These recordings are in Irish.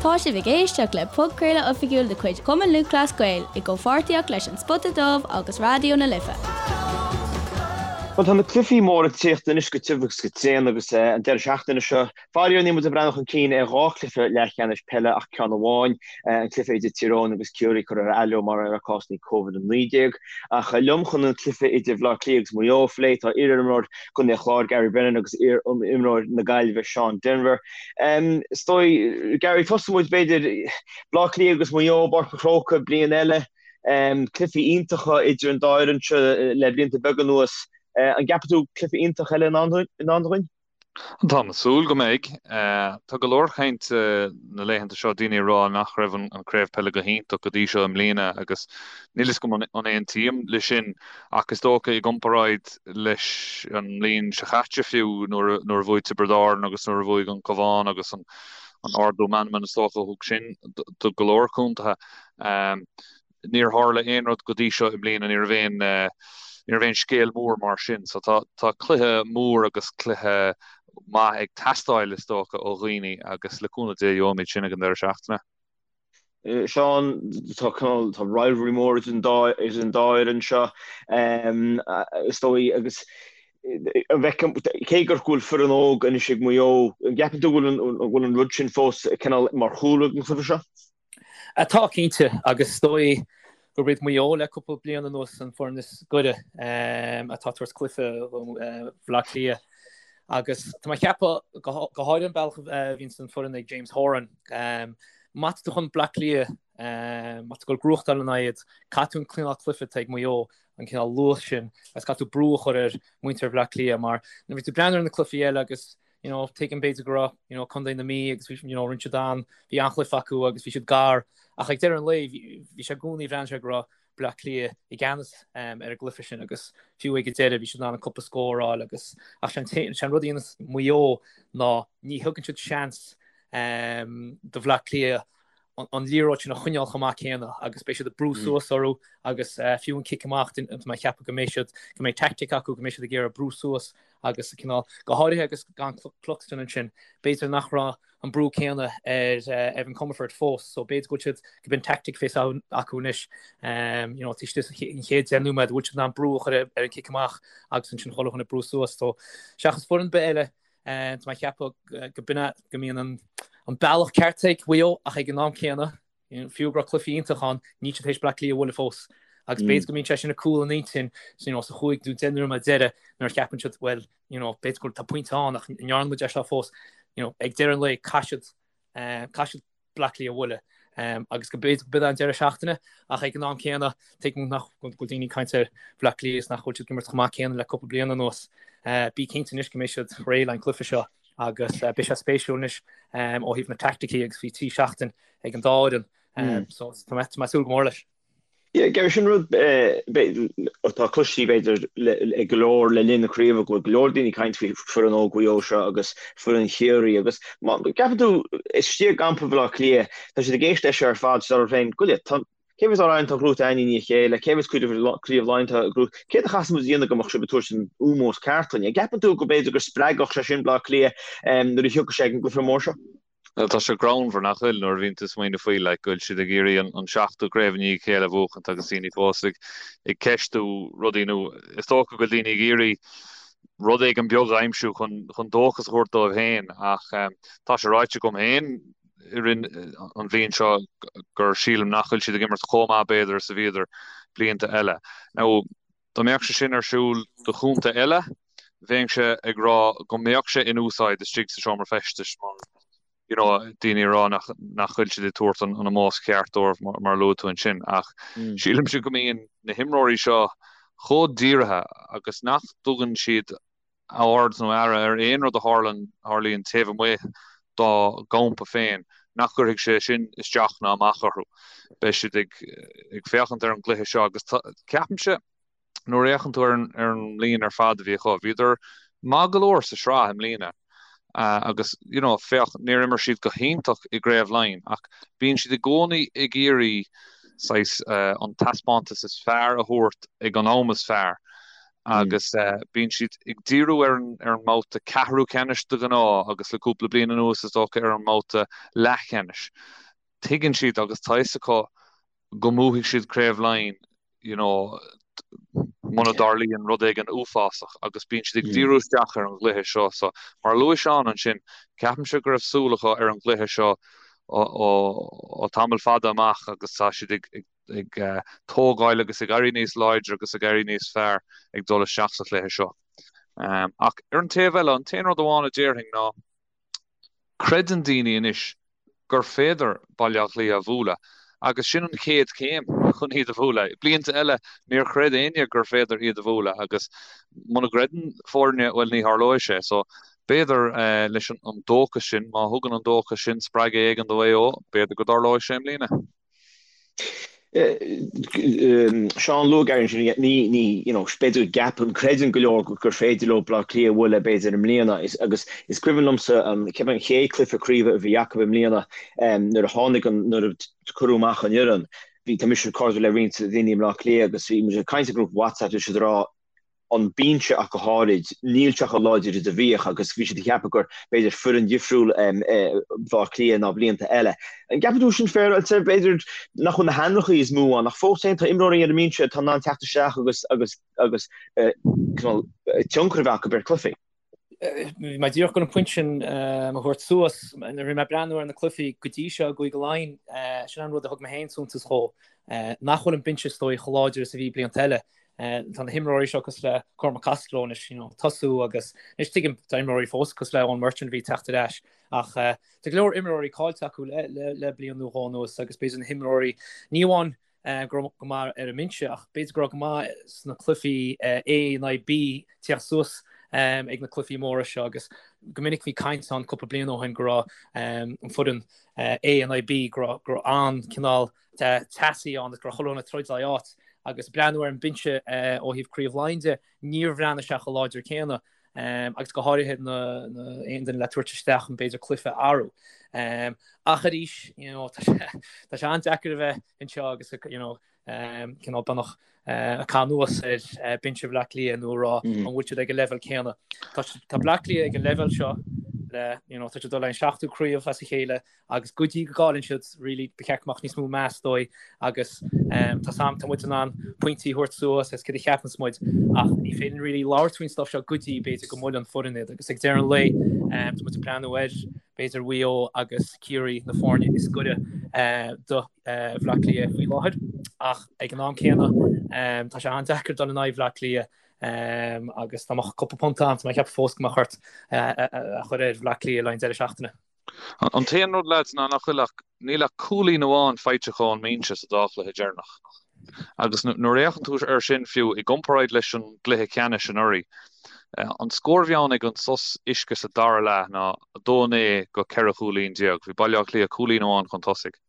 Tá sibh ag éisteacht le podchraoladh oifigiúil de chuid Chumann Lúthchleas Gael i gcomhpháirtíocht leis An Spota Dubh agus Raidió na Life. Bhuel, tá na cluichí móra ag tíocht anois go tiubh agus go tréan agus an deireadh seachtaine seo, faraor níl muid ag breathnú chun cinn ar dhá chluiche leathcheannais peile ach ceann amháin, an cluiche idir Tír Eoghain agus Ciarraí curtha ar athló mar gheall ar cásanna Covid-19. Ach liom chun an cluiche idir Bhaile Átha Cliath agus Maigh Eo a phlé tá iar-imreoir Chontae an Chláir Gary Brennan agus iar-imreoir na Gaillimhe Seán Denvir. Is dóigh, Gary, tosóidh muid b'fhéidir, Baile Átha Cliath agus Maigh Eo i bPáirc an Chrócaigh bliain eile. Cluichí iontacha idir an dá fhoireann seo le blianta beaga anuas. An gceapann tú cluiche iontach eile i ndán dúinn? Táim ag súil go mbeidh. Tá go leor cainte na laethanta seo, daoine ag rá nach raibh an craobh peile go hiontach go dtí seo i mbliana agus níl fhios agam an aontaím le sin ach is dócha i gcomparáid leis an mbliain seo chaite fiú nuair a bhuaigh Tiobraid Árann agus nuair a bhuaigh an Cabhán agus an ardú meanman is dócha a thug sin do go leor contaetha. Níor tharla aon rud go dtí seo i mbliana, ní raibh aon, ní raibh aon scéal mór mar sin. So tá, tá cluiche mór agus cluiche maith ag teastáil is dócha ó dhaoine agus le cúnamh Dé gheobhaimid sin ag an deireadh seachtaine. Seán, tá cineál, tá rivalry mór idir an dá, idir an dá fhoireann seo, is dóigh, agus an bhfeiceann, cé gur go bhfuil foireann óg anois ag Maigh Eo, an gceapann tú go bhfuil an, go bhfuil an rud sin fós cineál mar chúlra ag an chluiche seo? Tá, cinnte, agus is dóigh gurb iad Maigh Eo le cúpla bliain anuas an foireann is gaire atá ag tabhairt cluiche do Bhaile Átha Cliath. Agus tá mé ag ceapadh, go háirithe an bealach a bhíonns an foireann ag James Horan, má tá tú chun Bleá Cliath, má tá tú ag goil gnóthachtáil ina aghaidh, caithfidh tú an cineál cluiche atá ag Maigh Eo, an cineál luas sin, agus caithfidh tú brú a chur ar mhuintir Bhaile Átha Cliath mar nuair a bhí tú ag breathnú ar na cluichí eile agus you know, tuigim b'fhéidir go raibh, you know, Contae na Mí agus bhí, you know, rinne siad an, bhí an-chluiche acu agus bhí siad gar ach ag deireadh an lae bhí, bhí sé i gcónaí, bhreathnaigh sé go raibh Bleá Cliath i gceannas um, ar an gcluiche sin agus fiú ag an deireadh bhí siad in ann an cúpla scór a fháil agus ach sé an, sé an rud a dhéanas Maigh Eo ná ní thugann siad seans um, do Bhleá Cliath an liathróid sin a choinneáil chomh maith céanna agus beidh siad ag brú suas orthu agus fiú an cic amach, tá mé ag ceapadh go mbeidh siad, go mbeidh tactic acu, go mbeidh siad ag iarraidh brú suas agus cineál, go háirithe agus gan Cluxton ansin, b'fhéidir nach raibh an brú céanna ar Evan Comerford fós so b'fhéidir go bhfuil siad, go b'in tactic a bheas acu anois, you know, taobh istigh den chéad 10 nóiméad, bhfuil siad in ann brú a chur ar an cic amach agus ansin chuile dhuine ag brú suas so seachas foireann ar bith eile Tá mé ag ceapadh go b'in é go mbíonn an bealach ceart ag Mhaigh Eo ach ag an am céanna, fiú go raibh cluichí iontach ann, níl siad tar éis Bleá Cliath a bhualadh fós. Agus b'fhéidir go mbíonn sé sin ag cúl an intinn you know, sa chúig nó 10 nóiméad deiridh nuair a cheapann siad well, you know, b'fhéidir go tá pointe ann ach ní dhearna muid é seo fós. You know, ag deireadh an lae caithfidh siad, caithfidh siad Bleá Cliath a bhualadh agus go b'fhéidir go b'in an deireadh seachtaine ach ag an am céanna tuigim nach bhfuil daoine ag caint ar Bhleá Cliath is nach bhfuil siad ag imirt chomh maith céanna le cúpla bliain anuas. Bí cinnte anois go mbeidh siad réidh le an cluiche seo agus beidh sé spéisiúil anois ó thaobh na teaicticí agus bhí 3 seachtain ag an dá fhoireann so tá mé ag súil go mór leis. Yeah, Gary, sin rud atá cloiste b'fhéidir ag go leor le linn na craoibhe, go bhfuil go leor daoine ag caint faoi foireann óg Mhaigh Eo seo agus foireann Chiarraí agus má gceapann tú istigh i gcampa Bhaile Átha Cliath, tá siad ag éisteacht leis seo ar fad, siad orthu féin, goile, tá, cé mhéad amhrán atá gnóite againn i ndiaidh a chéile, cé mhéad craobh Laighean atá gnóite, céard a chaithfeas muid a dhéanamh go mbeadh sibh ag tabhairt an ómós ceart dúinn? An gceapann tú go b'fhéidir go spreagfadh sé sin Baile Átha Cliath nuair a thiocfadh sé ag an gcluiche mór seo? Bhuel, tá sé greannmhar, nach bhfuil, nuair a bhíonn tú ag smaoineamh faoi, like, go bhfuil siad ag iarraidh an seachtú craobh i ndiaidh a chéile a bhuachaint agus daoine fós ag, ag ceistiú rudaí nó is dócha go bhfuil daoine ag iarraidh rud éigin beag a aimsiú chun, chun dóchas a thabhairt dóibh féin ach tá sé ráite agam féin i rith an bhliain seo gur sílim nach bhfuil siad ag imirt chomh maith b'fhéidir is a bhíodar blianta eile. Now, Dá mbeadh sé sin ar siúl do chontae eile, bheinnse ag rá go mbeadh sé in úsáid istigh sa seomra feistis mar you know daoine ag rá nach nach bhfuil siad ag tabhairt an an ómós ceart dóibh mar mar a luaigh tú ansin ach sílimse go mbíonn na himreoirí seo chomh dírithe agus nach dtugann siad aird nó aire ar aon rud a tharlann, tharlaíonn taobh amuigh dá gcampa féin, nach gcuirfidh sé sin isteach ná amach orthu. Beidh siad ag ag féachaint ar an gcluiche seo agus ceapaimse, nuair a fhéachann tú ar an ar an mbliain ar fad a bhí acu, bhíodar maith go leor sa sraith i mbliana agus you know féach, níor imir siad go hiontach i gCraobh Laighean ach bíonn siad i gcónaí ag iarraidh saghas an taispeántas is fearr a thabhairt ag an am is fearr. Agus bíonn siad ag díriú ar an ar an mbabhta ceathrú ceannais de ghnáth agus le cúpla bliain anuas is dócha ar an mbabhta leathcheannais. Tuigeann siad agus tá fhios acu go mbuafaidh siad Craobh Laighean you know muna dtarlaíonn rud éigin uafásach agus bíonn siad ag díriú isteach ar an gcluiche seo. So mar a luaigh Seán ansin, ceapaimse go raibh súil acu ar an gcluiche seo ó tamall fada amach agus tá siad ag ag tógáil agus ag éirí níos láidre agus ag éirí níos fearr ag dul isteach sa chluiche seo. Ach ar an taobh eile, an t-aon rud amháin a déarfainn ná creideann daoine anois gur féidir Baile Átha Cliath a bhualadh agus sin an chéad chéim chun iad a bhualadh. Blianta eile níor chreid éinne gur féidir iad a bhualadh agus muna gcreideann foirne, bhuel ní tharlóidh sé. So b'fhéidir leis an dóchas sin, má thugann an dóchas sin spreagadh éigin do Mhaigh Eo, b'fhéidir go dtarlóidh sé i mbliana. Seán, luaigh Gary ansin, ní, ní, you know, b'fhéidir go gceapann, creideann go leor gur féidir leo Baile Átha Cliath a bhualadh b'fhéidir i mbliana agus is cuimhin liomsa an, ceapaim an chéad cluiche craoibhe a bhí acu i mbliana nuair a tháinig an, nuair a cuireadh amach an fhoireann, bhí, tá mise cairdiúil le roinnt daoine i mBleá Cliath agus bhí muid ag caint i ngrúpa WhatsApp, bhí siad ag rá, an binse ach go háirid, níl sé chomh láidir is a bhíodh agus bhí siad ag ceapadh gur b'fhéidir foireann dhifriúil Baile Átha Cliath ná blianta eile. An gceapann tú sin féaráilte? B'fhéidir nach bhfuil na hainmneacha is mó ann ach fós féin tá imreoirí ar an mbinse atá in ann teacht isteach agus agus agus cineál tionchar a bheith acu ar chluichí. Bhí mé díreach chun an pointe sin a thabhairt suas. Nuair a bhí mé ag breathnú ar na cluichí go dtí seo i gCúige Laighean, sin an rud a thug mé féin suntas dhó, nach bhfuil an binse is dóigh chomh láidir is a bhí blianta eile. Tá na himreoirí seo cosúil le Cormac Costello anois, you know, tosú agus anois tuigim tá imreoirí fós cosúil le Eoin Murchan a bhí ag teacht ar ais ach tá go leor imreoirí caillte acu le, le, le bliain nó dhó anuas agus b'fhéidir na himreoirí ní amháin go raibh go maith ar an mbinse ach b'fhéidir go raibh go maith sna cluichí A in aghaidh B teacht suas ag na cluichí móra seo agus go minic bhí caint ann cúpla bliain ó shin go raibh an foireann A in aghaidh B go raibh go raibh an-cineál teasaí ann agus go raibh chuile dhuine ag troid le áit agus breathnú ar an mbinse ó thaobh Craobh Laighean de, níor bhreathnaigh sé chomh láidir céanna agus go háirithe na aon duine le tabhairt isteach chun b'fhéidir cluiche a athrú. Ach arís, you know, tá sé tá sé an-deacair a bheith anseo agus you know, cineál beagnach ag caitheamh anuas ar binse Bhaile Átha Cliath nó a rá an bhfuil siad ag an leibhéal céanna. Tá tá Bleá Cliath ag an leibhéal seo le you know, tá siad ag dul an seachtú craobh as a chéile agus go dtí go gcailleann siad really ba cheart go mbeadh níos mó meas dóibh agus tá 's a'm tá muid in ann pointí a thabhairt suas as céard a cheapanns muid ach ní féidir really labhairt faoin stuff seo go dtí b'fhéidir go mbuaileann foireann iad agus ag deireadh an lae tá muid ag breathnú ar b'fhéidir Mhaigh Eo agus Ciarraí na foirne is gaire do Bhleá Cliath faoi láthair ach ag an am céanna tá sé an-deacair dul in aghaidh Bhleá Cliath agus dá mbeadh cúpla punt a'm tá mé ag ceapadh fós go mbeadh ort a chur ar Bhleá Cliath le haghaidh an deireadh seachtaine. An t-aon rud lads ná nach bhfuil ach, níl ach cúilín amháin faighte acu ón mbinse sa dá chluiche deireanach. Agus nuair a fhéachann tú air sin fiú i gcomparáid leis an gcluiche ceannais anuraidh, an scór a bhí ann ag an sos uisce sa dara leath ná 2-9 go 14 chúilín. Bhí Baile Átha Cliath cúilín amháin chun tosaigh.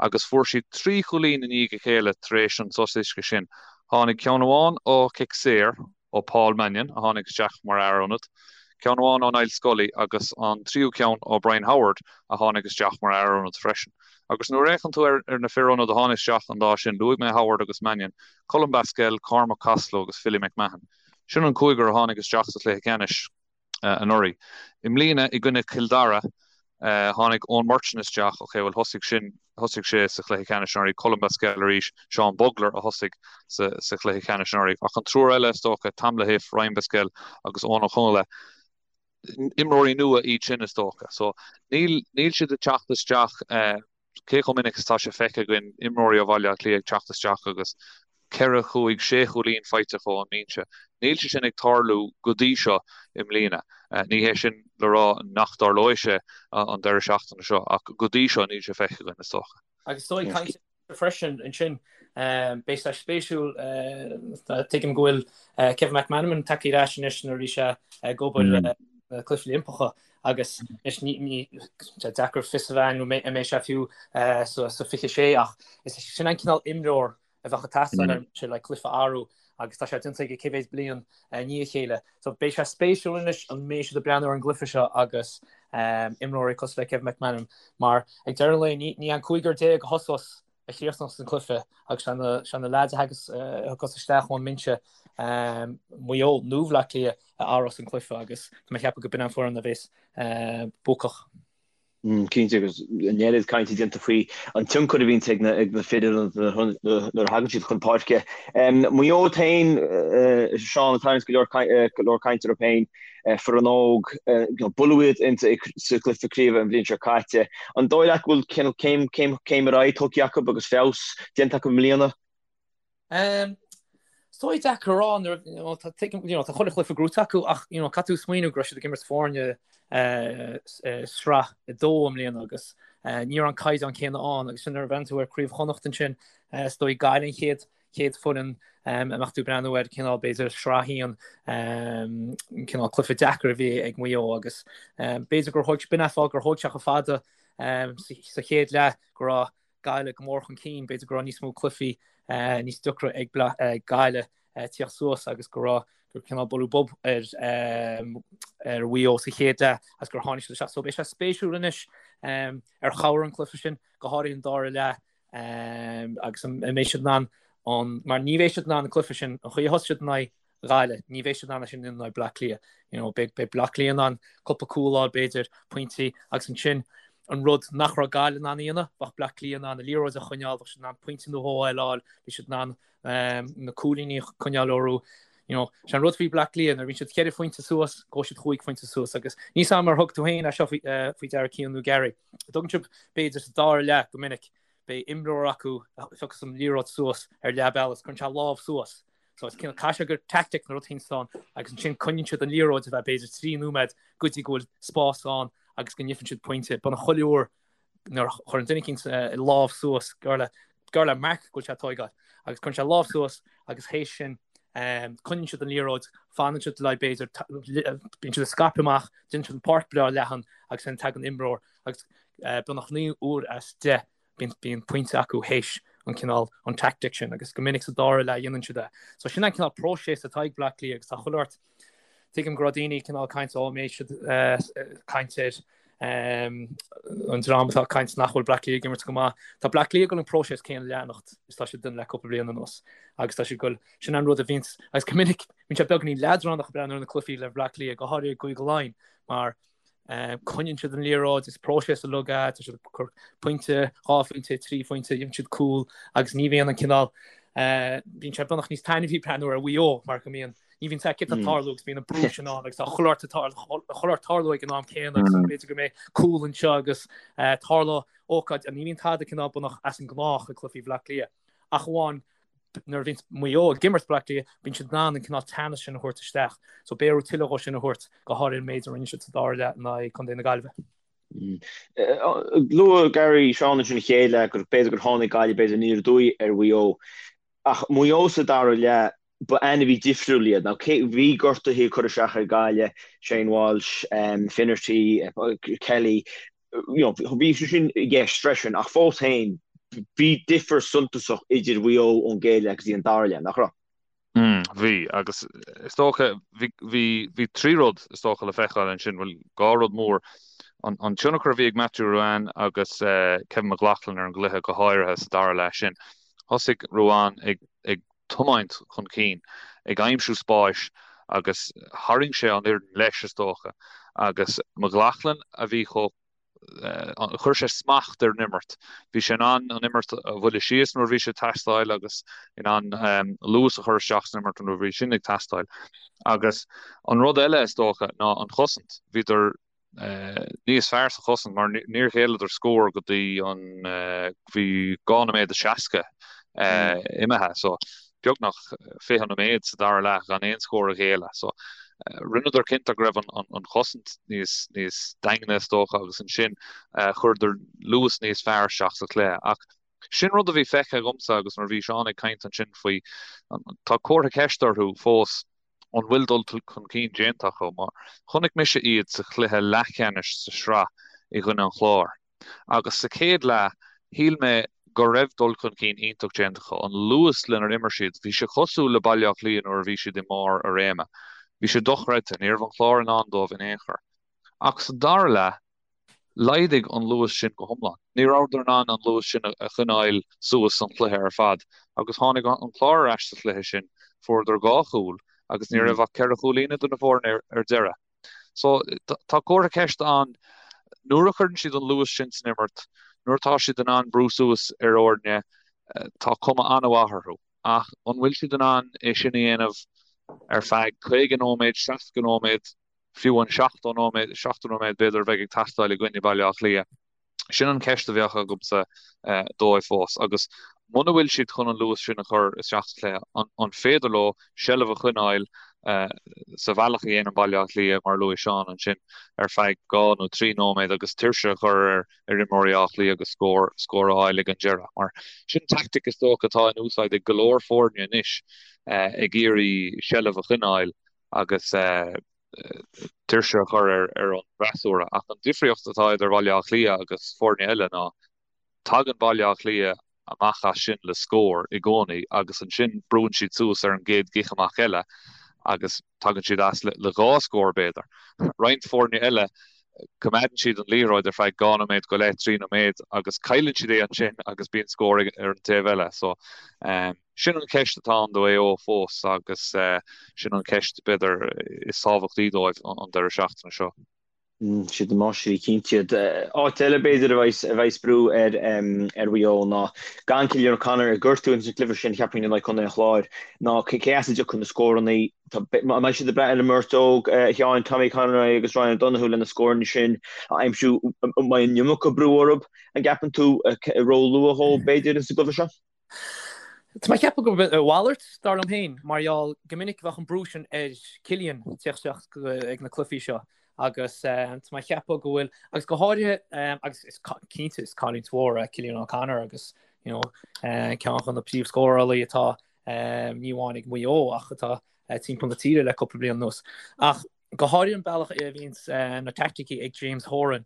Agus fuair siad trí chúilín i ndiaidh a chéile tar éis an sos uisce sin. Tháinig ceann amháin ó chic saor, ó Paul Mannion, a tháinig isteach mar fhear ionaid, ceann amháin ó Niall Scully agus an tríú ceann ó Brian Howard, a tháinig isteach mar fhear ionaid freisin. Agus nuair a fhéachann tú ar na fir ionaid a tháinig isteach an lá sin, luaigh mé Howard agus Mannion, Colm Basquel, Cormac Costello agus Philly McMahon. Sin an cúigear a tháinig isteach sa chluiche ceannais. anuraidh. I mbliana, i gcoinne Chill Dara, tháinig Eoin Murchan isteach, ok, bhuel thosaigh sin, thosaigh sé sa chluiche ceannais anuraidh, Colm Basquel arís, Seán Bugler a thosaigh sa sa chluiche ceannais anuraidh. Ach an triúr eile, is dócha, Tom Lahiff, Ryan Basquel agus Eoin Ó Conghaile, imreoirí nua iad sin, is dócha. So, níl, níl siad ag teacht isteach, Cé chomh minic is atá sé feicthe againn imreoirí ó Bhaile Átha Cliath ag teacht isteach agus ceithre, chúig, sé chúilín faighte acu ón mbinse? Níl sé sin ag tarlú go dtí seo i mbliana. Ní hé sin le rá nach dtarlóidh sé an deireadh seachtaine seo ach go dtí seo níl sé feicthe againn, is dócha. Agus is dóigh caint freisin ansin, beidh sé spéisiúil, tuigim go bhfuil Kevin McManamon tagtha ar ais anois nuair a bhí sé ag obair na Cluichí Oilimpeacha agus anois ní sé deacair fios a bheith an mbeidh sé fiú sa 26 ach is sin an cineál imreoir a bheadh ag teastáil ar sé le cluiche a athrú agus tá sé déanta aige cé mhéad bliain i ndiaidh a chéile. So beidh sé spéisiúil anois an mbeidh siad ag breathnú ar an gcluiche seo agus imreoirí cosúil le Kevin McManamon mar ag deireadh an lae ní an cúigear déag a thosós a chríochnós an cluiche agus sé na leaids a thagas isteach ón mbinse. Maigh Eo nó Bhleá Cliath a athrós an cluiche agus tá mé ag ceapadh go b'in an foireann a bheas buacach. Cinnte, agus an oiread cainte déanta faoi an tionchar a bhíonns ag na fir nuair a thagann siad chun páirce. Maigh Eo féin, Seán, ag tarraingt go leor cainte orthu féin, foireann óg, buaileadh iad sa chluiche craoibhe an bhliain seo caite. An dóigh leat go bhfuil céim ar aghaidh tugtha acu agus feabhas déanta acu i mbliana? Is dóigh deacair a rá nuair you know, tá tuigim you know, tá chuile chluiche gnóite acu ach you know, caithfidh tú smaoineamh go raibh siad ag imirt foirne sraith 2 i mbliana agus ní raibh an caighdeán céanna ann agus sin nuair a bhreathnaíonn tú ar Craobh Chonnacht ansin is dóigh Gaillimh an chéad chéad foireann a mbeadh tú ag breathnú ar cineál b'fhéidir sraith 1 cineál cluiche deacair a bhí ag Maigh Eo agus b'fhéidir gur thóg b'in an fáth gur thóg sé chomh fada sa chéad leath go raibh Gaillimh go mór chun cinn, b'fhéidir go raibh níos mó cluichí níos deacra ag Gaillimh tíocht suas agus go raibh gur cineál bualadh bob ar ar Mhaigh Eo sa chéad leath agus gur tháinig siad isteach. So beidh sé spéisiúil anois ar chabhraigh an cluiche sin, go háirithe an dara leath agus an mbeidh siad in ann an mar ní bheidh siad in ann an cluiche sin an chaoi a thosaigh siad in aghaidh Ghaillimh. Ní bheidh siad in ann é sin in aghaidh Bleá Cliath. You know, beidh, beidh Bleá Cliath in ann cúpla cúl a fháil, b'fhéidir, pointí, agus ansin an rud nach raibh Gaillimh in ann a dhéanamh, bheadh Bleá Cliath in ann an liathróid a choinneáil, bheadh siad in ann pointe nó dhó eile a fháil, bhí siad in ann um, na cúilíní a choinneáil orthu. You know, sé an rud faoi Bleá Cliath, nuair a bhíonn siad cheithre phointe suas, gabhfaidh siad chúig phointe suas, agus níl a fhios agam ar thug tú féin é seo faoi, uh, faoi deara Cian nó Gary. Tugann sibh, b'fhéidir, sa dara leath go minic, beidh imreoir acu a phiocas an liathróid suas ar leath bealaigh, cuireann sé a lámh suas. So is cineál caithfidh sé gur tactic nó rud éicint ann agus ansin coinníonn siad an liathróid ar feadh b'fhéidir 3 nóiméad go dtí go bhfuil spás ann agus go ngeibheann siad pointe. Beagnach chuile uair nuair a chuireann duine eicínt a lámh suas gur le gur le marc go bhfuil sé ag tóigeáil agus cuireann sé a lámh suas agus théis sin coinníonn siad an liathróid, fanann siad le b'fhéidir bíonn siad ag scaipeadh amach, déanann siad an páirc breá leathan agus ansin tagann imreoir agus beagnach 9 uair as 10 bíonn pointe acu théis an cineál, an tactic sin agus go minic sa dara leath dhéanann siad é. So sin an cineál próiseas atá ag Bleá Cliath agus tá chuile shórt, tuigim go raibh daoine cineál caint ó mbeidh siad caint ar an dream atá ag caint nach bhfuil Bleá Cliath ag imirt go maith. Tá Bleá Cliath ag dul an próiseas céanna a leanacht is tá siad ag déanamh le cúpla bliain anuas agus tá siad ag dul, sin an rud a bhíonns, agus go minic bíonn sé beagáinín leadránach ag breathnú ar na cluichí le Bleá Cliath, go háirithe i gCúige Laighean mar Coinníonn siad an liathróid, is próiseas uilig é, tá siad ag cur pointe, dhá phointe, trí phointe, gheibheann siad cúl agus ní bhíonn an cineál, bíonn sé beagnach níos taitneamhaí breathnú ar Mhaigh Eo mar go mbíonn, ní bhíonn cad tá ag tarlú agus bíonn an brú sin ann agus tá chuile shórt ag tarlú ag an am céanna agus b'fhéidir go mbeidh cúl anseo agus tarlóidh ócáid, ní bhíonn tada cineál beagnach as an ngnách ag cluichí Bhaile Átha Cliath ach amháin nuair a bhíonn Maigh Eo ag imirt Bleá Cliath, bíonn siad in ann an cineál teannas sin a thabhairt isteach. So beidh orthu tuilleadh dhó sin a thabhairt, go háirithe an méid a rinne siad sa dara leath in aghaidh Contae na Gaillimhe. Luaigh Gary Seán ansin an chéad leath gur b'fhéidir gur tháinig Gaillimh b'fhéidir aniar aduaidh ar Mhaigh Eo. Ach Maigh Eo sa dara leath, ba ainmhí difriúil iad. Now cé, bhí gortuithe ag cur isteach ar Gaillimh, Shane Walsh, Finnerty, Kelly, you know, bhí sé sin i gceist freisin ach fós féin bhí difear suntasach idir Mhaigh Eo ón gcéad leath go dtí an dara leath, nach raibh? Mm, bhí, agus is dócha, bhí, bhí, bhí trí rud is dócha le feiceáil ansin, bhuel, dhá rud mór. An, an tionchar a bhí ag Matthew Ruane agus eh, Kevin McLaughlin ar an gcluiche go háirithe sa dara leath sin. Thosaigh Ruane ag, ag tiomáint chun cinn, ag aimsiú spáis agus tharraing sé an fhoireann leis, is dócha, agus McLaughlin a bhí chomh, chuir sé smacht ar an imirt. Bhí sé in ann an imirt a bhualadh síos nuair a bhí sé ag teastáil agus in ann luas a chur isteach san imirt nuair a bhí sin ag teastáil. Agus an rud eile, is dócha, ná an chosaint. Bhíodar níos fearr sa chosaint mar níor ghéilleadar scór go dtí an bhí 2 nóiméad is 60 imithe so beagnach 20 nóiméad sa dara leath gan aon scór a ghéilleadh so rinneadar cinnte go raibh an chosaint níos níos daingne is dócha agus ansin chuireadar luas níos fearr isteach sa chluiche ach sin rud a bhí feicthe agamsa agus nuair a bhí Seán ag caint ansin faoi tá comhartha ceiste orthu fós an bhfuil dul chun cinn déanta acu, mar chonaic mise iad sa chluiche leathcheannais sa sraith i gcoinne an Chláir agus sa chéad leath shíl mé go raibh dul chun cinn iontach déanta acu. An luas lenar imir siad, bhí sé cosúil le Baile Átha Cliath nuair a bhí siad i mbarr a réime. Bhí sé dochreidte, ní raibh an Clár in ann dóibh in aon chor. Ach sa dara leath, Laghdaigh an luas sin go hiomlán. Ní rabhadar in ann an luas sin a choinneáil suas an cluiche ar fad agus tháinig an Clár ar ais sa chluiche sin. Fuaireadar 2 chúl agus ní raibh ach 4 chúilín idir na foirne ar deireadh. So tá comhartha ceiste ann nuair a chuireann siad an luas sin san imirt, nuair atá siad in ann brú suas ar fhoirne, tá cuma an-mhaith orthu. Ach an bhfuil siad in ann é sin a dhéanamh ar feadh 50 nóiméad, 60 nóiméad, fiú an 70 nóiméad, 70 nóiméad b'fhéidir a bheidh ag teastáil i gcoinne Baile Átha Cliath? Sin an cheist a bheadh agamsa dóibh fós. Agus muna bhfuil siad chun an luas sin a chur isteach sa chluiche, an féidir leo seilbh a choinneáil sa bhealach a dhéanann Baile Átha Cliath, mar a luaigh Seán ansin, ar feadh 2 nó 3 nóiméad agus tuirse a chur ar imreoirí Átha Cliath agus scór scór a fháil ag an deireadh. Mar sin tactic is dócha atá in úsáid ag go leor foirne anois ag iarraidh seilbh a choinneáil agus tuirse a chur ar an bhfreasúra. Ach an difríocht atá idir Bhaile Átha Cliath agus foirne eile ná tagann Baile Átha Cliath amach as sin le scór i gcónaí agus ansin brúann siad suas ar an gcéad gcic amach eile agus tagann siad as le 2 scór b'fhéidir. Roinnt foirne eile coimeádann siad an liathróid ar feadh 2 nóiméad go leith, 3 nóiméad agus cailleann siad é ansin agus bíonn scór ar an taobh eile. So sin an cheist atá ann do Mhaigh Eo fós agus sin an cheist b'fhéidir is tábhachtaí dóibh an deireadh seachtaine seo. Siad na máistrí cinnte iad. Áit eile b'fhéidir a bheas brú ar ar Mhaigh Eo ná gan Cillian O'Connor ag gortú ins an gcluiche sin cheapfainn in aghaidh Contae an Chláir ná cé as a dtiocfaidh na scóranna. An mbeidh siad ag brath ar an mbeirt óg, a Sheáin, Tommy Conroy agus Ryan O'Donoghue le na scóranna sin a aimsiú? An mbeidh an iomarca brú orthu, an gceapann tú, ró-luath dhóibh b'fhéidir ins an gcluiche seo? Tá mé ag ceapadh gurb a mhalairt, dar liom féin, mar gheall go minic bheadh an brú sin ar Cillian teacht isteach ag na cluichí seo agus tá mé ag ceapadh go bhfuil, agus go háirithe, agus is cinnte is cailliúint mhór é Cillian O'Connor agus you know ceann de na príomhscórálaí atá ní amháin ag Maigh Eo ach atá timpeall na tíre le cúpla bliain anuas. Ach go háirithe an bealach a bhíonns na teaicticí ag James Horan,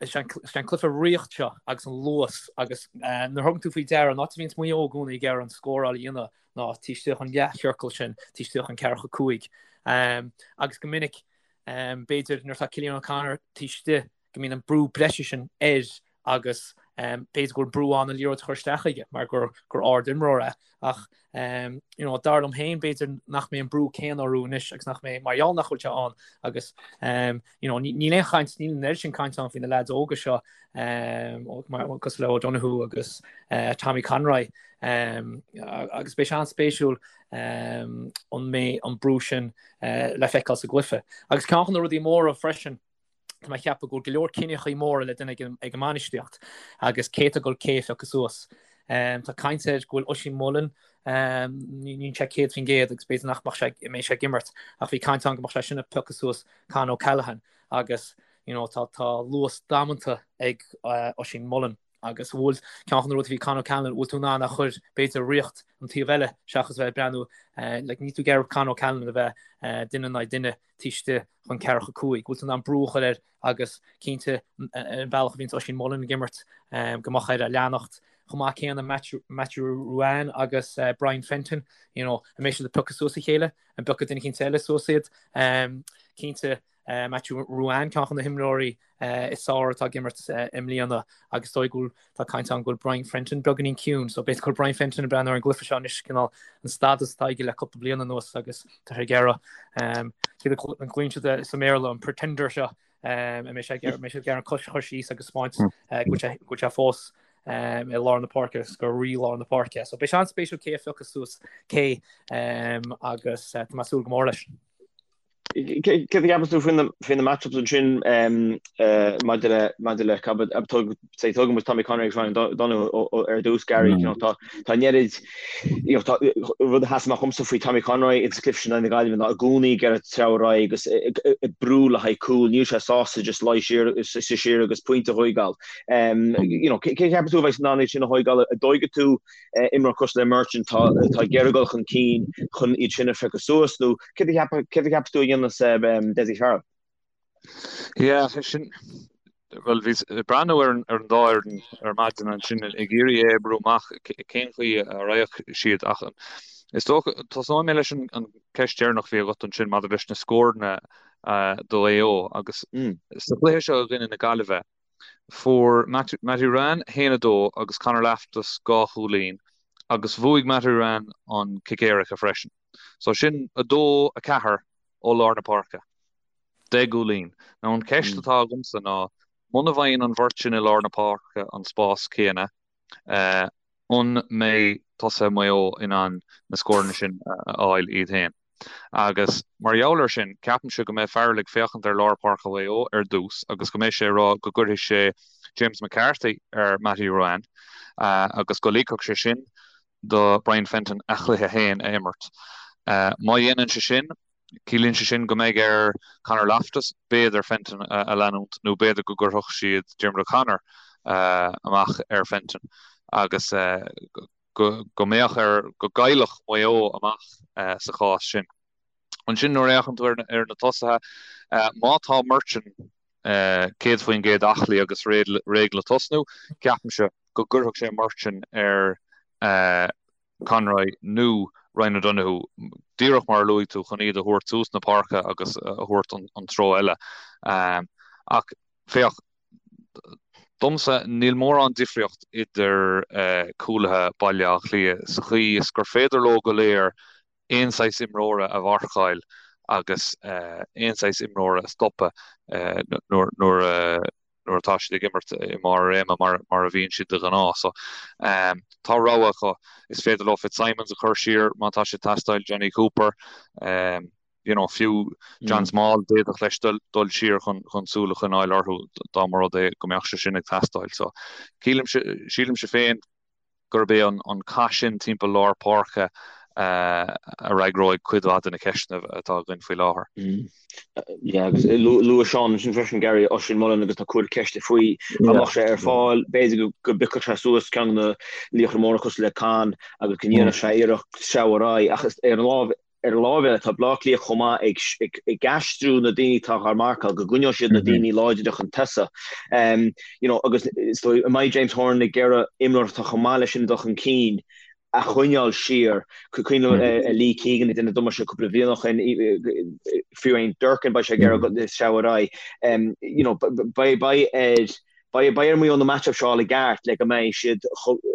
Is é an cluiche riocht seo agus an luas agus nuair a thugann tú faoi deara an áit a bhíonns Maigh Eo i gcónaí ag iarraidh an scóráil a dhéanamh ná taobh istigh den leathchiorcal sin, taobh istigh den ceathracha 5. Agus go minic, b'fhéidir nuair atá Cillian O'Connor taobh istigh go mbíonn an brú breise sin air agus b'fhéidir go bhfuil brú ann an liathróid a chur isteach chuige mar gur gur ard-imreoir é. Ach you know, dar liom féin b'fhéidir nach mbeidh an brú céanna orthu anois agus nach mbeidh mar gheall nach bhfuil sé ann agus you know, níl aon chaint, níl an oiread sin caint ann faoi na leaids óga seo mar cosúil le O'Donoghue agus Tommy Conroy agus beidh sé an-spéisiúil an mbeidh an brú sin le feiceáil sa gcluiche. Agus ceann de na rudaí móra freisin, Tá mé ag ceapadh go bhfuil go leor cinneachaí móra le déanamh ag an mbainistíocht agus cé atá ag dul cé a phiocadh suas. Tá caint air go bhfuil Oisín Mullin, níl sé 100% agus b'fhéidir nach mbeadh sé, mbeidh sé ag imirt ach bhí caint ann go mbeadh sé sin ag piocadh suas Con O'Callaghan agus you know tá tá luas damanta ag Oisín Mullin agus bhfuil ceann de na rudaí faoi Con O'Callaghan, bhfuil tú in ann a chur b'fhéidir riocht an taobh eile seachas bheith ag breathnú like níl tú ag iarraidh Con O'Callaghan a bheith duine in aghaidh duine taobh istigh den ceathracha 5. Bhfuil tú in ann brú a chur air agus cinnte an bealach a bhíonns Oisín Mullin ag imirt go mbeadh air a leanacht. Chomh maith céanna Matthew Ruane agus Brian Fenton, you know, an mbeidh siad ag piocadh suas a chéile, an bpiocfaidh duine eicínt eile suas iad. Cinnte Matthew Ruane, ceann de na himreoirí is fearr atá ag imirt i mbliana agus is dóigh go bhfuil, tá caint ann go bhfuil Brian Fenton beagáinín ciúin so b'fhéidir go bhfuil Brian Fenton ag breathnú ar an gcluiche seo anois cineál an stádas atá aige le cúpla bliain anuas agus tá sé ag iarraidh céard a ghlaonn siad sa mBéarla an pretender seo an mbeidh sé ag iarraidh an cois a chur síos agus spáint go bhfuil sé fós i lár na páirce agus gur rí lár na páirce. So beidh sé an-spéisiúil cé a phiocfas suas cé agus tá mé ag súil go mór leis. Céard a cheapann tú faoi na match-ups ansin maidir le maidir le say tógann muid Tommy Conroy agus Ryan O'Donoghue ar dtús Gary you know tá tá an oiread you know tá rud a sheas amach dhomsa faoi Tommy Conroy ins an cluiche sin in aghaidh na Gaillimhe ná i gcónaí ag iarraidh treabhadh ar aghaidh agus ag brú le haghaidh cúl níl sé sásta just luí siar siar agus pointe a thógáil. You know cé a cheapann tú a bheidh in ann iad sin a thógáil an dtógfaidh tú imreoir cosúil le Merchant atá ag iarraidh dul chun cinn chun iad sin a phiocadh suas nó céard a cheapas tú a dhéanfas Dessie Farrell? Yeah, sin, bhuel, bhíos ag breathnú ar an dá fhoireann ar maidin ansin ag iarraidh é a oibriú amach cén chaoi a raghadh siad ach is dócha, tosnóidh mé leis an ceist deireanach a bhí agat ansin maidir leis na scóranna do Mhaigh Eo agus sa chluiche seo i gcoinne na Gaillimhe, Fuair Mattie Ruane 1, 2 agus Conor Loftus 2 chúilín. Agus bhuaigh Mattie Ruane an cic éirice freisin. So sin 2, 4 ó lár na páirce. 10 gcúilín. Now an cheist atá agamsa ná, muna bhfaigheann an bheirt sin i lár na páirce an spás céanna, an mbeidh tosaithe Mhaigh Eo in ann na scóranna sin a fháil iad féin? Agus mar gheall air sin, ceapaimse go mbeidh Farrell ag féachaint ar lár páirce Mhaigh Eo ar dtús agus go mbeidh sé ag rá go gcuirfidh sé James McCarthy ar Mattie Ruane agus go ligfeadh sé sin do Brian Fenton a chluiche féin a imirt. Má dhéanann sé sin, ciallaíonn sé sin go mbeidh ar Conor Loftus b'fhéidir Fenton a leanúint nó b'fhéidir go gcuirfeadh siad Diarmuid O'Connor amach ar Fenton agus go mbeadh ar, go gcaillfeadh Maigh Eo amach sa chás sin. Ansin nuair a fhéachann tú ar na tosaithe, má tá Murchan 100% aclaí agus réidh le tosnú, ceapaimse go gcuirfeadh sé Murchan ar Conroy nó Ryan O'Donoghue, díreach mar a luaigh tú, chun iad a thabhairt suas na páirce agus a thabhairt an treo eile. Ach féach, domsa, níl mórán difríocht idir cúlaithe Bhaile Átha Cliath sa chaoi is gur féidir leo go léir aon saghas imreora a mharcáil agus aon saghas imreora a stopadh nuair nuair atá siad ag imirt i mbarr a réime mar a bhíonn siad de ghnáth. So tá rogha acu. Is féidir leo Fitzsimons a chur siar má tá sé ag teastáil, Jonny Cooper, you know, fiú John Small, d'fhéadfadh leis dul siar chun súil a choinneáil orthu dá mba rud é go mbeadh sé sin ag teastáil. So sílimse féin gurb é an cath sin timpeall lár páirce a fhreagróidh cuid mhaith de na ceisteanna atá againn faoi láthair. Yeah, agus luaigh Seán ansin freisin, Gary, Oisín Mullin agus tá cúrsaí ceiste faoi dá mbeadh sé ar fáil, b'fhéidir go bpiocfadh sé suas ceann de na laochra móra cosúil le Con agus go ndéanfadh sé iarracht sreabhadh ar aghaidh ach ar an lámh Ar an láimh eile, tá Bleá Cliath chomh maith ag aistriú na daoine atá á marcáil, go gcoinneoidh siad na daoine láidre chun tosaigh. You know, agus is dóigh, an mbeidh James Horan ag iarraidh imreoir atá chomh maith leis sin ag dul chun cinn a choinneáil siar. Cuimhin liom Lee Keegan ag déanamh damáiste cúpla bliain ó shin, fiú amháin Durcan, beidh sé ag iarraidh sreabhadh ar aghaidh. You know, beidh ar beidh ar Mhaigh Eo na match-ups seo a fháil i gceart le go mbeidh siad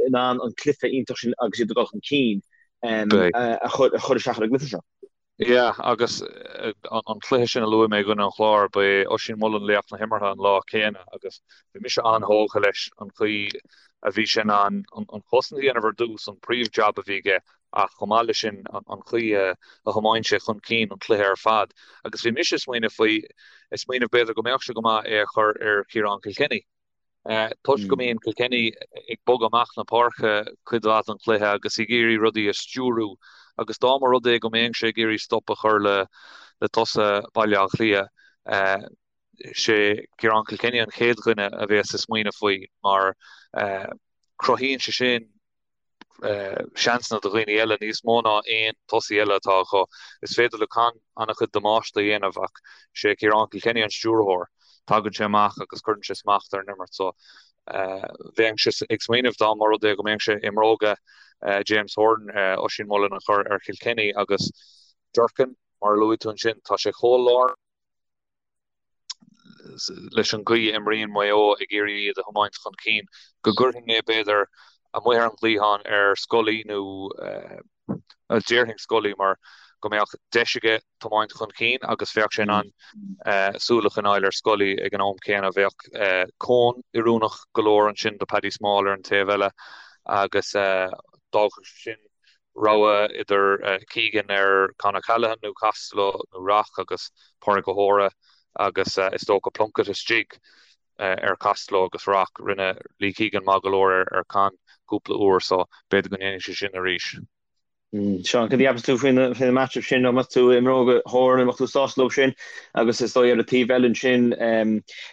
in ann an cluiche iontach sin agus iad ag dul chun cinn. a chur isteach ar an gcluiche seo. Yeah, agus an cluiche sin a luaigh mé i gcoinne an Chláir, ba é Oisín Mullin laoch na himeartha an lá céanna agus bhí mise an-thógtha leis an chaoi a bhí sé in ann an chosaint a dhéanamh ar dtús, an príomh-jab a bhí aige, ach chomh maith leis sin an chaoi a thiomáin sé chun cinn an cluiche ar fad. Agus bhí mise ag smaoineamh faoi, ag smaoineamh b'fhéidir go mbeadh sé go maith é a chur ar Chiarán Kilkenny. Toisc go mbíonn Kilkenny ag bogadh amach na páirce cuid mhaith den chluiche agus ag iarraidh rudaí a stiúrú agus dá mba rud é go mbeadh sé ag iarraidh stop a chur le tosaithe Bhaile Átha Cliath, sé Ciarán Kilkenny an chéad dhuine a bheas ag smaoineamh faoi mar cruthaíonn sé sin seansanna do dhaoine eile níos mó ná aon tosaí eile atá acu. Is féidir le Con an-chuid damáiste a dhéanamh ach sé Ciarán Kilkenny an stiúrthóir. Tagann sé amach agus cuireann sé smacht ar an imirt so bheinnse ag smaoineamh dá mba rud é go mbeadh sé i mbróga James Horan, Oisín Mullin a chur ar Kilkenny agus Durcan, mar a luaigh tú ansin, tá sé chomh lárnach. leis an gcaoi a imríonn Maigh Eo ag iarraidh iad a thiomáint chun cinn, go gcuirfinn é b'fhéidir amuigh ar an gcliathán ar Scully nó déarfainn Scully mar go mbeadh deis aige tiomáint chun cinn agus bheadh sé in ann súil a choinneáil ar Scully ag an am céanna. Bheadh cón oiriúnach go leor ansin do Paddy Small ar an taobh eile agus d'fhágfadh sé sin rogha idir Keegan ar Con O'Callaghan nó Costello nó Rock agus Pádraig O'Hora agus is dócha Plunkett istigh ar Costello agus Rock. Rinne Lee Keegan maith go leor ar Con cúpla uair so b'fhéidir go ndéanfaidh sé sin arís. Seán, cad a cheapas tú faoin matchup sin? An mbeadh tú i mbróga Horan, an mbeadh tú sásta leo sin? Agus is dóigh ar an taobh eile ansin,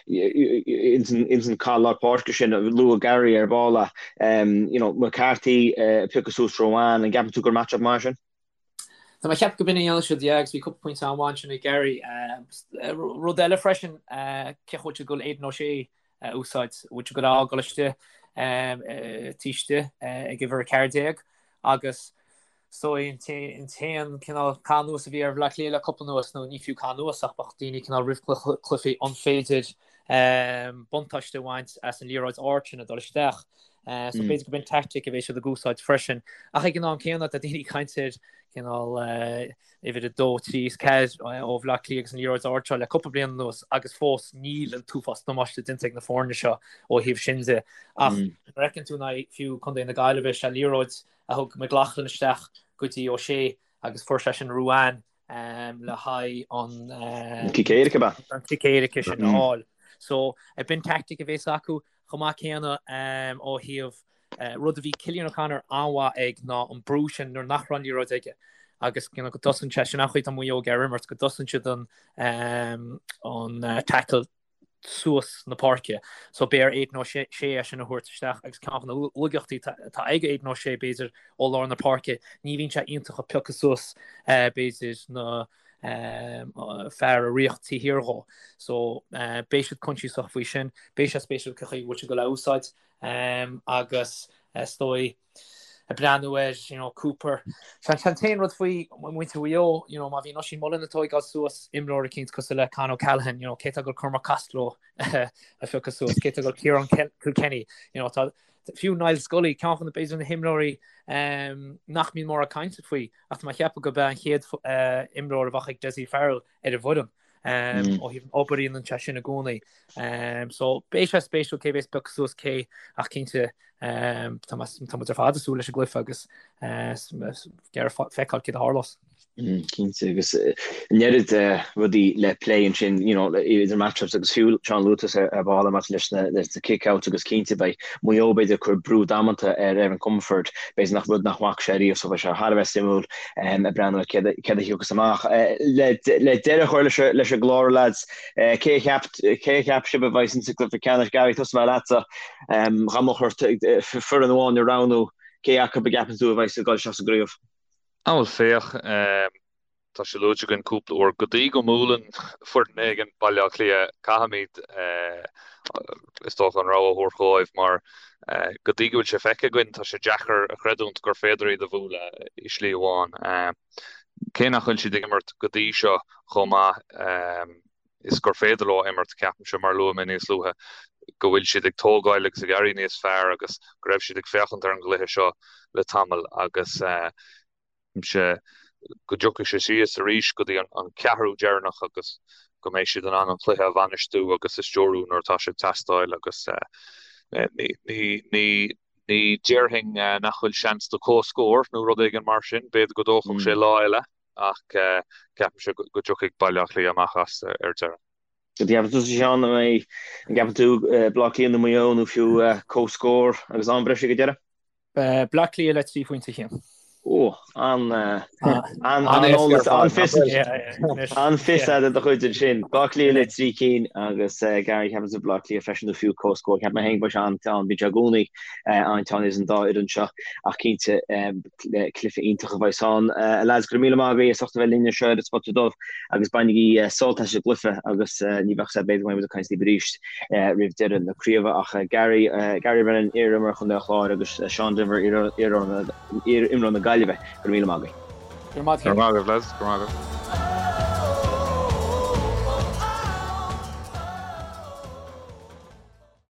ins an cath lár páirce sin, luaigh Gary ar ball é, you know, McCarthy ag piocadh suas Ruane, an gceapann tú gur match-up maith é sin? Tá mé ag ceapadh go b'in a dhéanfaidh siad, yeah, agus bhí cúpla pointe an-mhaith ansin ag Gary. Rud eile freisin, cén chaoi a bhfuil siad ag dul Aidan O'Shea a úsáid, bhfuil siad ag dul a fhágáil istigh taobh istigh ag uimhir 14 agus so an t-aon cineál cath anuas a bhí ar Bhaile Átha Cliath le cúpla anuas, nó ní fiú cath anuas ach bheadh daoine cineál roimh cluichí an féidir. buntáiste a bhaint as an liathróid ard sin ag dul isteach. So b'fhéidir gurb in tactic a bheidh siad ag úsáid freisin. Ach ag an am céanna tá daoine ag caint ar cineál uimhir 2, 3 is 4 ó Bhaile Átha Cliath agus an liathróid ard seo le cúpla bliain anuas agus fós níl an t-uafás damáiste déanta ag na foirne seo ó thaobh sin de. Ach nuair a fheiceann tú in aghaidh fiú Contae na Gaillimhe, sé liathróid a thug McLaughlin isteach go dtí O'Shea agus fuair sé sin Ruane le haghaidh an cic éirice ab ea? An cic éirice sin a fháil. So b'in tactic a bhéas acu chomh maith céanna ó thaobh rud a bhí Cillian O'Connor an-mhaith ag ná an brú sin nuair nach raibh an liathróid aige agus you know, go dtosaíonn sé sin an chaoi tá Maigh Eo ag iarraidh imirt go dtosaíonn siad an an tackle suas na páirce. So beidh ar Aidan O'Shea é sin a thabhairt isteach agus ceann de na laigeachtaí atá ag Aidan O'Shea b'fhéidir ó lár na páirce, ní bhíonn sé iontach ag piocadh suas b'fhéidir na fear ag ritheacht taobh thiar dhó. So beidh siad coinsiasach faoi sin. Beidh sé spéisiúil cén chaoi a bhfuil siad ag dul a úsáid agus is dóigh ag breathnú ar you know, Cooper. Sé an t-aon rud faoi muintir Mhaigh Eo, you know, má bhíonn Oisín Mullin ag tóigeáil suas imreoir eicínt cosúil le Con O'Callaghan, you know, cé tá ag dul Cormac Costello a phiocadh suas, cé tá ag dul Ciarán Kilkenny, you know, tá fiú Niall Scully, ceann de na b'fhéidir na himreoirí um, nach mbíonn mórán cainte faoi, ach tá mé ag ceapadh gurb é an chéad uh, imreoir a bheadh ag Dessie Farrell ar an bhfoireann. Ó thaobh an obair a dhéanann sé sin i gcónaí. So beidh sé spéisiúil cé bhéas ag piocadh suas cé ach cinnte tá muid ar fad ag súil leis an gcluiche agus ag iarraidh feiceáil céard a tharlós. Cinnte agus an oiread rudaí le plé ansin you know idir matchups agus fiú Seán luaigh tusa ar ball maidir leis na leis na kick-outs agus cinnte beidh Maigh Eo b'fhéidir ag cur brú damanta ar Evan Comerford b'fhéidir nach rud nach bhfaca sé riamh so beidh sé thar a bheith suimiúil ag breathnú ar céard a thiocfas amach. Le deireadh a chur leis an gclár, lads, cé a cheap cé a cheap sibh a bheas insa gcluiche ceannais? Gary, tosóidh mé leatsa. Dá mbeadh ort foireann amháin a roghnú, cé acu a gceapann tú a bheas ag dul isteach sa gcraobh? Á bhuel féach, tá sé luaite againn cúpla uair, go dtí go mbuaileann foireann éigin Baile Átha Cliath, caithfimid, is dócha, an rogha a thabhairt dhóibh mar go dtí go bhfuil sé feicthe againn, tá sé deacair a chreidiúint gur féidir iad a bhualadh i slí amháin. Cé nach bhfuil siad ag imirt go dtí seo chomh maith is gur féidir leo imirt, ceapaimse, mar a luaigh mé níos luaithe, go bhfuil siad ag tógáil agus ag éirí níos fearr agus go raibh siad ag féachaint ar an gcluiche seo le tamall agus ceapaimse go dtiocfaidh sé síos arís go dtí an ceathrú deireanach agus go mbeidh siad in ann an cluiche a bhainistiú agus a stiúrú nuair atá sé ag teastáil agus ní ní déarfainn nach bhfuil seans do comhscór nó rud éigin mar sin, b'fhéidir go dtógfadh sé lá eile ach ceapaimse go dtiocfaidh Baile Átha Cliath amach as ar deireadh. An gceapann tusa Seán, an gceapann tú Baile Átha Cliath nó Maigh Eo nó fiú comhscór agus am breise ag an deireadh? Baile Átha Cliath le 3 phointe a Chian. Ó, an an-fhios de do chuid ansin. Baile Átha Cliath le 3 cinn agus Gary ceapann tú Baile Átha Cliath freisin nó fiú comhscór. Ceapaim féin go mbeidh sé an-teann, bíonn sé i gcónaí an-teann idir an dá fhoireann seo ach cinnte cluiche iontach a bheas ann. A lads, go raibh míle maith agaibh as ucht a bheith linn anseo ar an Spota Dubh agus bainigí sult as an gcluiche agus ní bheadh sé b'fhéidir go mbeidh muid ag caint libh arís roimh deireadh na craoibhe ach Gary, Gary Brennan, iar-imreoir Chontae an Chláir agus Seán Denvir, iar-imreoir na Gaillimhe, go raibh míle maith agaibh. Go raibh maith agaibh, lads. Go raibh maith agaibh.